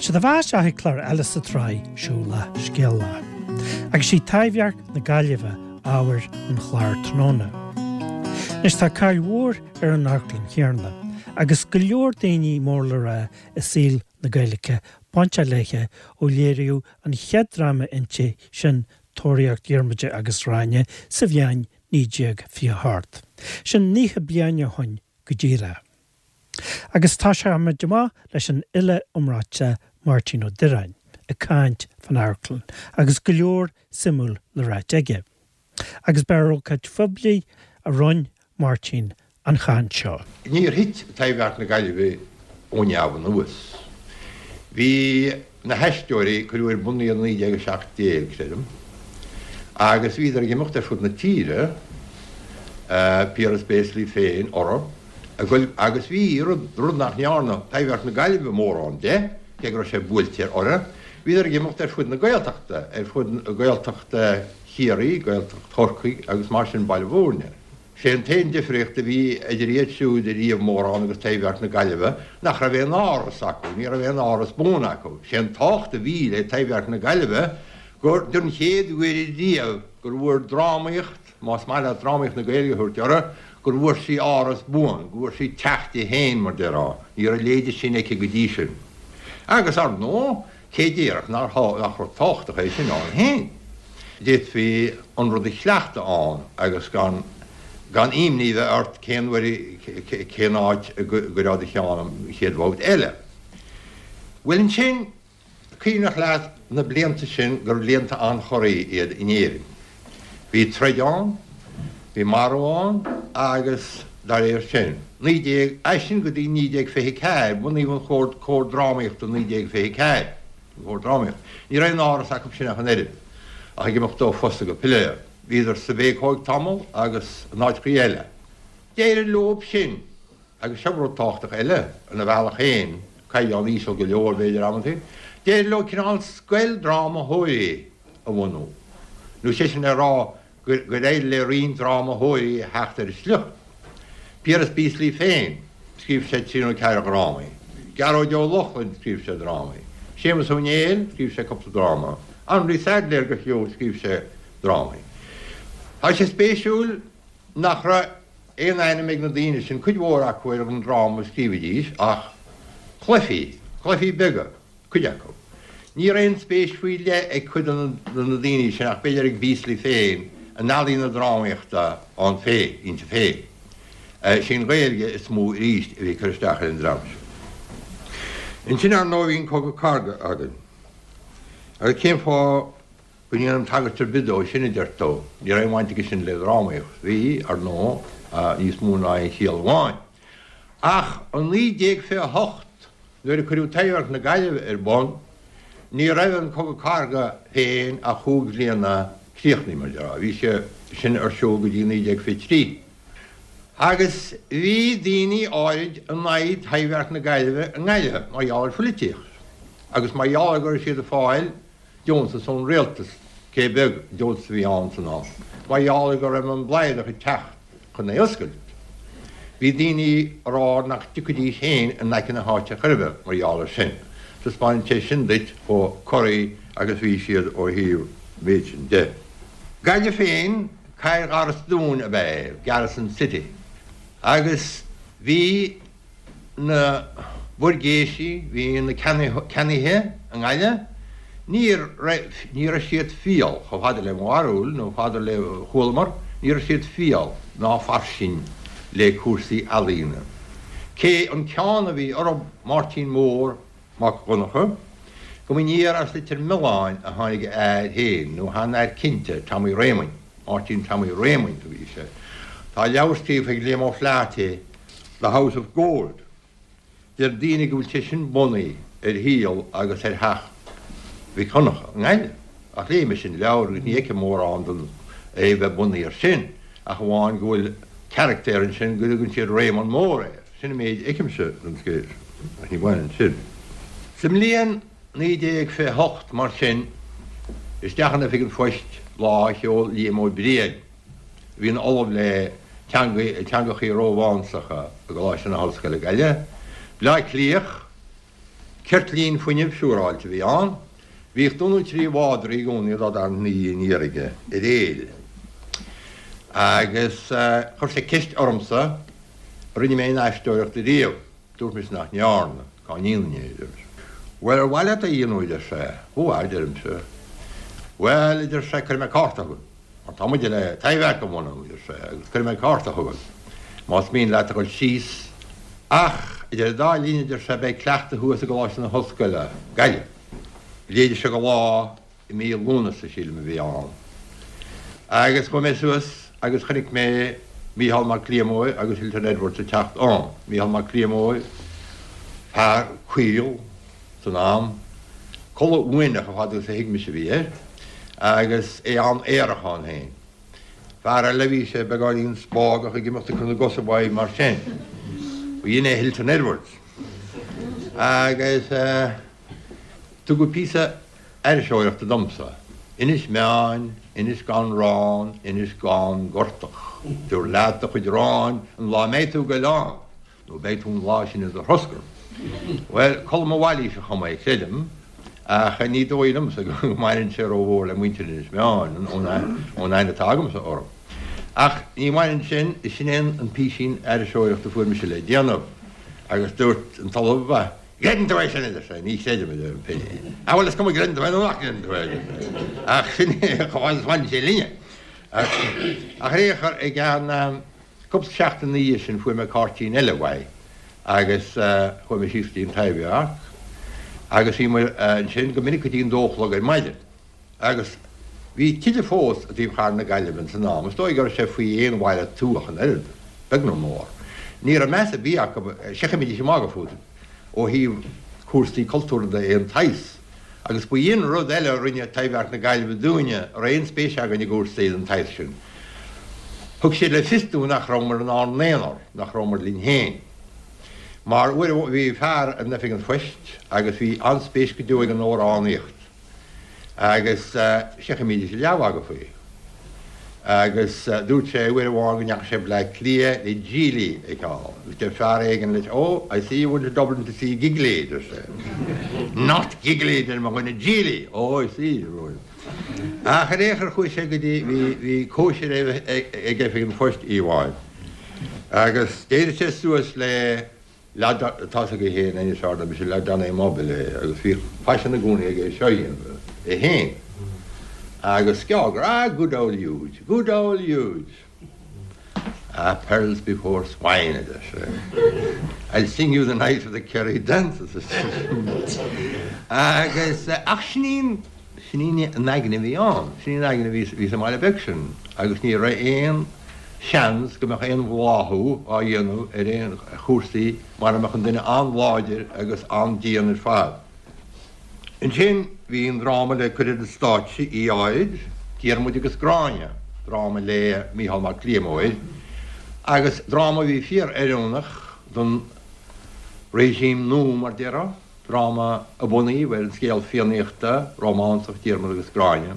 Siad a bheas isteach ag clár eile sa tsraith Siúlach Scéalach. Agus sí Taibhdhearc na Gaillimhe ábhar an chláir tráthnóna. Anois tá cáil mhór ar an amharclann chéanna agus go leor daoine mór le rá i saol na Gaeilge bainteach léithe ó léiríodh an chéad dráma inti sin Tóraíocht Dhiarmada agus Ghráinne sa bhliain 1928. Sin 90 bliain ó shoin go díreach. Agus tosóimid amach leis an fhile iomráiteach Máirtín Ó Direáin ag caint fán amharclann agus go leor suimiúil le ráit aige. Agus ba ar ócáid phoiblí a rinne Máirtín an chaint seo. Níor thit Taibhdhearc na Gaillimhe ó neamh anuas. Bhí na hAisteoirí, cuireadh ar bun iad i 1917, creidim, agus bhíodar ag imeacht ar fud na tíre, Piaras Béaslaí féin orthu, ag goil, agus bhí, rud, rud nach ndearna Taibhdhearc na Gaillimhe mórán de, cé go raibh sé buailte orthu, bhíodar ag imeacht ar fud na Gaeltachta, ar fud Gaeltacht Chiarraí, Gaeltacht Chorcaí agus mar sin Baile Bhúirne. Sé an t-aon difríocht a bhí idir iad siúd ariamh mórán agus Taibhdhearc na Gaillimhe nach raibh aon áras acu, ní raibh aon áras buan acu. Sé an tábhacht a bhí le Taibhdhearc na Gaillimhe gur don chéad uair ariamh gur bhfuair drámaíocht, más maith leat drámaíocht na Gaeilge a thabhairt uirthi, gur bhfuair sí áras buan, go bhfuair sí teach di féin mar déarfá. Ní raibh a leithéide sin aici go dtí sin. Agus, ar ndóigh, Cé déarfadh nach rud tábhachtach é sin ann féin? D'fhéadfaí an rud a chleachtadh ann agus gan gan imní bheith ort cén uair cén áit a gcuirfeá do cheann an chéad bhabhta eile. Bhuel ansin, cuimhneach leat na blianta sin gur blianta an-chorraí iad in Éirinn. Bhí troid ann, bhí marú ann agus dá réir sin, 19, as sin go dtí 1924, bunaíodh an Comhar, Comhar Drámaíochta 1924, an Comhar Drámaíochta. Ní raibh aon áras acu sin ach an oiread, ach ag imeacht ó phosta go piléar. Bhíodar sa Bhéacóig tamall agus in áiteachaí eile. D'éirigh leob sin agus seo rud tábhachtach eile, ina bhealach féin, caighdeán íseal go leor b'fhéidir amantaí, d'éirigh leo cineál scoil drámathóirí a bhunú, nó sé sin le rá gur éirigh le roinnt drámathóirí a theacht ar an sliocht. Piaras Beaslaoi féin, scríobh sé trí nó ceathair dhrámaí. Gearóid Ó Lochlainn, scríobh sé drámaí. Séamus Ó Néill, scríobh sé cúpla dráma. Henri Saidléir go fiú, scríobh sé drámaí. Tá sé spéisiúil nach raibh aon ainm ag na daoine sin, cuid mhór acu ar an dráma a scríobhaidís, ach cluichí, cluichí beaga, cuid acu. Ní raibh aon spéis faoi leith ag cuid de na daoine sin, ach b'fhéidir ag Beasley féin, in ealaín na drámaíochta ann féin, inti féin. Is í an Ghaeilge is mó arís a bhí ag cur isteach ar an dream sin. Ansin, ar ndóigh, bhí an Cogadh Cathartha againn. Agus cén fáth go ndéanaim tagairt ar bith dó sin, a deir tú. Ní raibh aon bhaint aige sin le drámaíocht. Bhí, ar ndóigh, níos mó ná aon chiall amháin. Ach i 1928, nuair a cuireadh Taibhdhearc na Gaillimhe ar bun, ní raibh an Cogadh Cathartha féin ach chúig bhliana críochnaithe, mar a déarfá. Bhí sé sin ar siúl go dtí 1923. Agus bhí daoine áirid in aghaidh Taibhdhearc na Gaillimhe i nGaillimh, mar gheall ar phoilitíocht agus mar gheall ar go raibh siad ag fáil deontas ón rialtas, cé beag deontas a bhí ann san am, mar gheall ar go raibh an Bladhaireach ag teacht chun é a oscailt. Bhí daoine ag rá nach dtiocfaidís féin in aice na háite chor ar bith mar gheall ar sin. Taispeánann sé sin duit chomh corraithe agus bhí siad ó thaobh an mhéid sin de. Gaillimh féin, cathair gharastúin ab ea é, Garrison City, agus bhí na buirgéisí, bhí na ceannaithe i nGaillimh, ní raibh, ní raibh siad fial, chomh fada le mo bharúil, nó fada le chualamar, ní raibh siad fial ná fairsing le cúrsaí ealaíne. Cé an ceann a bhí orthu, Máirtín Mór Mac Dhonncha, go mb'aniar as Leitir Mealláin a tháinig a fhear féin, nó chan fhear cinnte, Tommy Réamoinn, Máirtín Tommy Réamoinn a bhí sé. Tá leabhar scríofa ag Liam O'Flaherty, The House of Gold. Deir daoine go bhfuil sé sin bunaithe ar shaol agus ar theach Mhic Dhonncha i nGaillimh. Ach léigh mise an leabhar agus ní fheicim mórán den é bheith bunaithe air sin, ach amháin go bhfuil carachtar ansin go dtugann siad Réamonn Mór air. Sin an méid a fheicimse den scéal sin, ach ní bhaineann sin. Sa mbliain 1928, mar sin, isteach in Oifig an Phoist lá a sheol Liam Ó Briain, a bhí ina ollamh le teangachaí Rómhánsacha i gColáiste na hOllscoile Gaillimh, Bleá Cliath. Ceirtlín fuinnimh siúráilte a bhí ann. Bhíodh dó nó 3 mhadra i gcónaí dá dtarraingt ina dhiaidh aniar aige ar éill. Agus chuir sé ceist ormsa an rinne mé aon aisteoireacht ariamh. Dúirt mise nach ndearna. Cá ndéanfainn é, a deir mise. Bhuel, ar mhaith leat é a dhéanamh, a deir sé. Ó, a deirimse. Bhuel, a deir sé, cuirfidh mé cárta chugat. Mar tá muid le Taibhdhearc a bhunú, a deir sé, agus cuirfidh mé cárta chugat más mian leat a dhul síos. Ach, idir an dá linn, a deir sé, beidh cleachtadh thuas i gColáiste na hOllscoile, Gaillimh. B'fhéidir seo go lá i mí Lúnasa, sílim, a bhí ann. Agus chuaigh mé suas agus chonaic mé Mícheál Mac Liammóir agus Hilton Edwards ag teacht ann. Mícheál Mac Liammóir, fear caol san am, culaith uaineach chomh fada agus a thuig mise a bhí air, agus é an-aerach ann féin. Fear eile, bhí sé beagáinín spágach ag imeacht ag cur na gcos uaidh mar sin. B'in é Hilton Edwards. Agus tugadh píosa aithriseoireachta domsa, Inis Meáin, Inis gan Rán, Inis gan Gortach. Tabhair leat do chuid aráin an lá a mbeidh tú ag goil ann, nó beidh tú an lá sin i do throscar. Bhuel, Colm Ó Mhailís a chum é, creidim, ach ní dóigh liomsa go mbaineann sé rómhór le muintir Inis Meáin, ón aithne atá agamsa orthu. Ach ní bhaineann sin, sin é an písín aithriseoireachta a fuair mise le déanamh, agus dúirt an tOllamh, Creideann tú é sin, a deir sé. Ní chreidim, a deirim féin. Ah, bhuel, is cuma gcreideann tú é nó nach gcreideann tú é, a deir sé. Ach sin é chomh fada is a bhaineann sé linne. Ach ar aon chor, i gceann cúpla seachtain ina dhiaidh sin fuair mé cairtín eile uaidh agus chuaigh mé síos go dtí an Taibhdhearc agus bhí muid ansin go minic go dtí an dó a chlog ar maidin. Agus bhí tithe fós i dtaobh chathair na Gaillimhe ins an am, is dóigh go raibh sé faoi aon bhaile tuath an oiread, beag nó mór. Ní raibh meas ar bith acu, seachnaídís ag magadh fút ó thaobh cúrsaí cultúrtha de aon tsaghas. Agus ba in rud eile a rinne Taibhdhearc na Gaillimhe dúinne a raibh aon spéis againn i gcúrsaí den tsaghas sin. Thug siad le fios dúinn nach rabhamar inár n-aonar, nach rabhamar linn féin. Mar uair amháin bhí fear in oifig an phoist agus bhí an-spéis go deo aige in amhránaíocht. Agus seachnaímidís leathmhagadh faoi. Agus dúirt sé uair amháin go ndeachaigh sé Bleá Cliath le Gigli a fheiceáil. Agus deir fear éigin leis, Oh, I see you went to Dublin to see Gigli, deir sé. Not Gigli, deir mo dhuine, Gigli! Oh, I see, deir mo dhuine. Ach ar aon chor chuaigh sé go dtí, bhí, bhí cóisir ag oifig an phoist oíche amháin. Agus d'éirigh sé suas le Leaid tá's agaibh féin anois ard mise leaid an-immobile é agus bhíodh faisean i gcónaí aige é seo a dhéanamh é féin agus sceágar, ah good old Huge, good old Huge. Ah pearls before swine a deir sé. I'll sing you the night of the Kerry dances a Agus ach sin í an Sin í an aigne a bhí ann. Sin í an aigne a bhí sa mbaile beag sin agus ní raibh aon seans go mbeadh aon bhláthú á dhéanamh ar aon chúrsaí mara mbeadh an duine an-láidir agus an-dian ar fad. Ansin bhí an dráma le cur ar an stáitse oíche áirid, Diarmuid agus Gráinne, dráma le Mícheál Mac Liammóir agus dráma a bhí fíor-oiriúnach don regime nua mar déarfá. dráma a bunaíodh ar an scéal Fiannaíochta rómánsach Diarmaid agus Gráinne,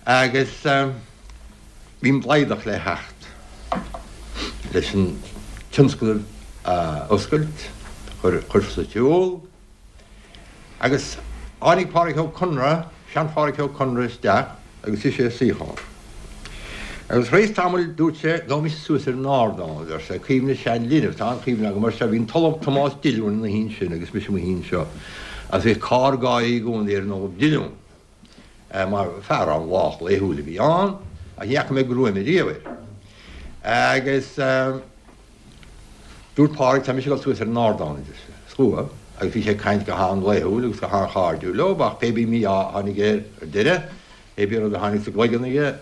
agus bhí an Blaghdach le theacht leis an tionscnamh a oscailt, a chur sa tsiúl, agus tháinig Pádraic Ó Conaire, sean-Phádraic Ó Conaire isteach agus shuigh sé i suíochán. Agus tar éis tamaill dúirt sé, Gabhfaidh mise suas ar an ardán, a deir sé, cuimhne sean linbh, tá an-chuimhne agam air seo, bhí an tOllamh Tomás Dillúin ina shuí ansin agus mise i mo shuí anseo, agus bhíodh cár gáirí i gcónaí ar an Ollamh Dillún, mar fear an-lách laethúil a bhí ann, ach ní fhaca mé gruaim ariamh air. Agus. Dúirt Pádraig, Tá mise ag dul suas ar an ardán, a deir sé. Is chuaigh, agus bhí sé ag caint go han-laethúil agus go han-chairdiúil leo, ach pé bí mí-ádh a tháinig air ar deireadh, pé bí rud a tháinig sa gcloigeann aige,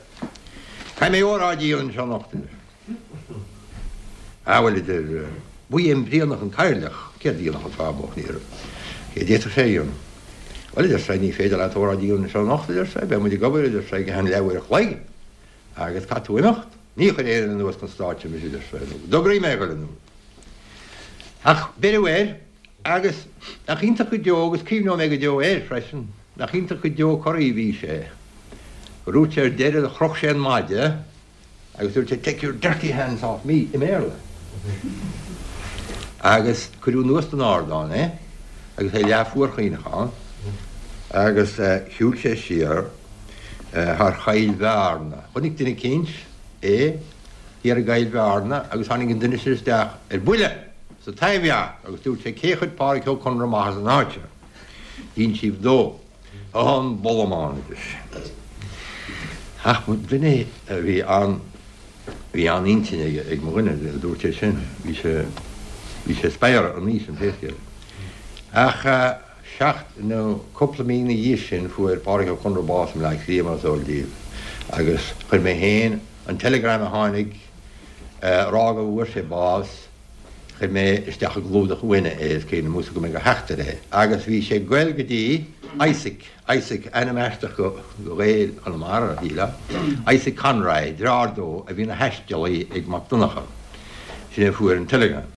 Caithfidh mé óráid a dhéanamh anseo anocht, a deir sé. Ah, bhuel, a deir, ba é an Brianach an cathaoirleach, céard a dhéanfadh an fear bocht, ní raibh, céard a d'fhéadfadh sé a dhéanamh? Bhuel, a deir sé, ní féidir leat óráid a dhéanamh anseo anocht, a deir sé, beidh muid ag obair, a deir sé, go ceann leathuair a chloig. Agus caithfidh tú imeacht. Ní chuirfidh aon duine anuas chun stáitse mise, a deir sé, nó go dtograí mé a dhul anuas. Ach beireadh air, agus nach iontach go deo, agus cuimhneoidh mé go deo air freisin, nach iontach go deo corraí a bhí sé, gur dhúirt sé ar deireadh, chroch sé an maide agus dúirt sé, Take your dirty hands off me, i mBéarla. Agus cuireadh anuas den ardán é. Agus é leath fuarchaoineach ann agus shiúil sé siar thar Choill Bhearna. Chonaic duine eicínt é thiar i gCoill Bhearna agus tháinig an duine sin isteach ar buile sa Taibhdhearc agus dúirt sé cé chuir Pádhraic Ó Conaire amach as an áit seo? D'insíodh dó. An bollamán a deir sé. Ach duine a bhí an, bhí an-intinn aige, ag mo dhuine, a dúirt é sin. Bhí sé, bhí sé spadhartha an oíche sin pé scéal é. Ach seacht, nó cúpla mí ina dhiaidh sin fuair Pádhraic Ó Conaire bás i mBleá Cliath mar is eol daoibh agus chuir mé féin an teileagram a tháinig a rá go bhfuair sé bás, Chuir mé isteach i gclúdach uaine é, is cuimhin liom, go mbeidh a theacht air é. Agus bhí sé ag goil go dtí Isaac, Isaac, ainm aisteach do Ghael Chonamara, shílfeá, Isaac Conroy, deartháir dó a bhí ina thaistealaí ag Mac Donncha. Sin é a fuair an teileagram.